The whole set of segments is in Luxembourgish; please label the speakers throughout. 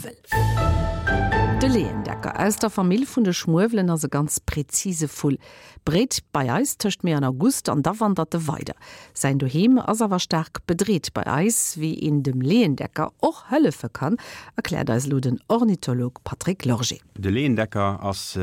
Speaker 1: Schmuewel. De Leeëndecker aus der Famill vun de Schmuewelen ass e ganz präzise Vull. Bréit bei eis tëscht Mee an August an da wandert e weider. Säin Doheem ass awer staark bedreet bei eis. Wéi een dem Leeëndecker och hëllefe kann, erkläert eis elo den Ornitholog Patrick Lorgé.
Speaker 2: De Leeëndecker ass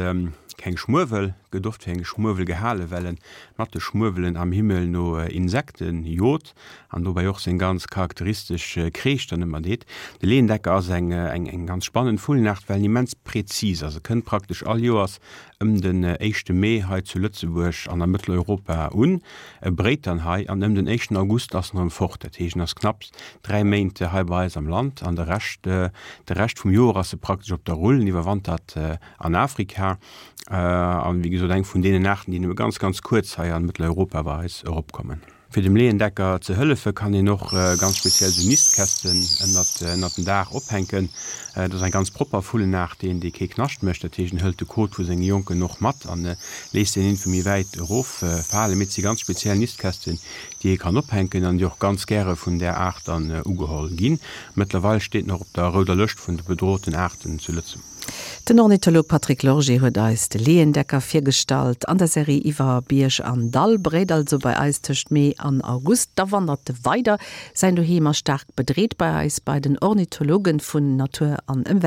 Speaker 2: keng Schmuewel, gëtt oft fir eng Schmuewel gehalen, well en mat de Schmuewelen am Himmel no Insekten jot an dobäi och seng ganz charakteristesch Kreesch dann ëmmer deet. De Leeëndecker ass eng eng ganz spannend Vullenaart, well en immens präzis ass. E kënnt praktesch all Joers ëm den éischte Mee hei zu Lëtzebuerg an a Mëtteleuropa un. E bréit dann hei an ëm den éischten August ass en erëm fort. Dat heescht, en ass knapps 3 Méint hei bei eis am Land an de Rescht, de Rescht vum Joer ass e praktesch op der Rull. En iwwerwantert an Afrika an, wéi gesot, eng vun deenen Aarten, déi nëmme ganz, ganz kuerz hei an Mëtteleuropa bei eis eropkommen. Fir dem Leeëndecker ze hëllefe kann een och ganz speziell sou Nistkästen ënnert ënnert den Daach ophänken. Dat ass eng ganz propper Vullenaart, deen dee kee Knascht mécht. Dat heescht en hëlt de Kot vu senge Jonken och mat an léisst deen iergendwou méi wäit erof falen. Mee et si ganz speziell Nistkästen, déi ee kann ophänken an déi och ganz gäre vun där Aart dann ugeholl ginn. Mëttlerweil steet en och op der rouder Lëscht vun de bedrohten Aarten zu Lëtzebuerg.
Speaker 1: Den Ornitholog Patrick Lorgé huet eis de Leeëndecker virgestallt an der Serie iwwer Bierg an Dall. Bréit also bei eis tëscht Mee an August, da wandert e weider. Säin Doheem ass staark bedreet bei eis, bei den Ornithologen vun Natur an Ëmwelt.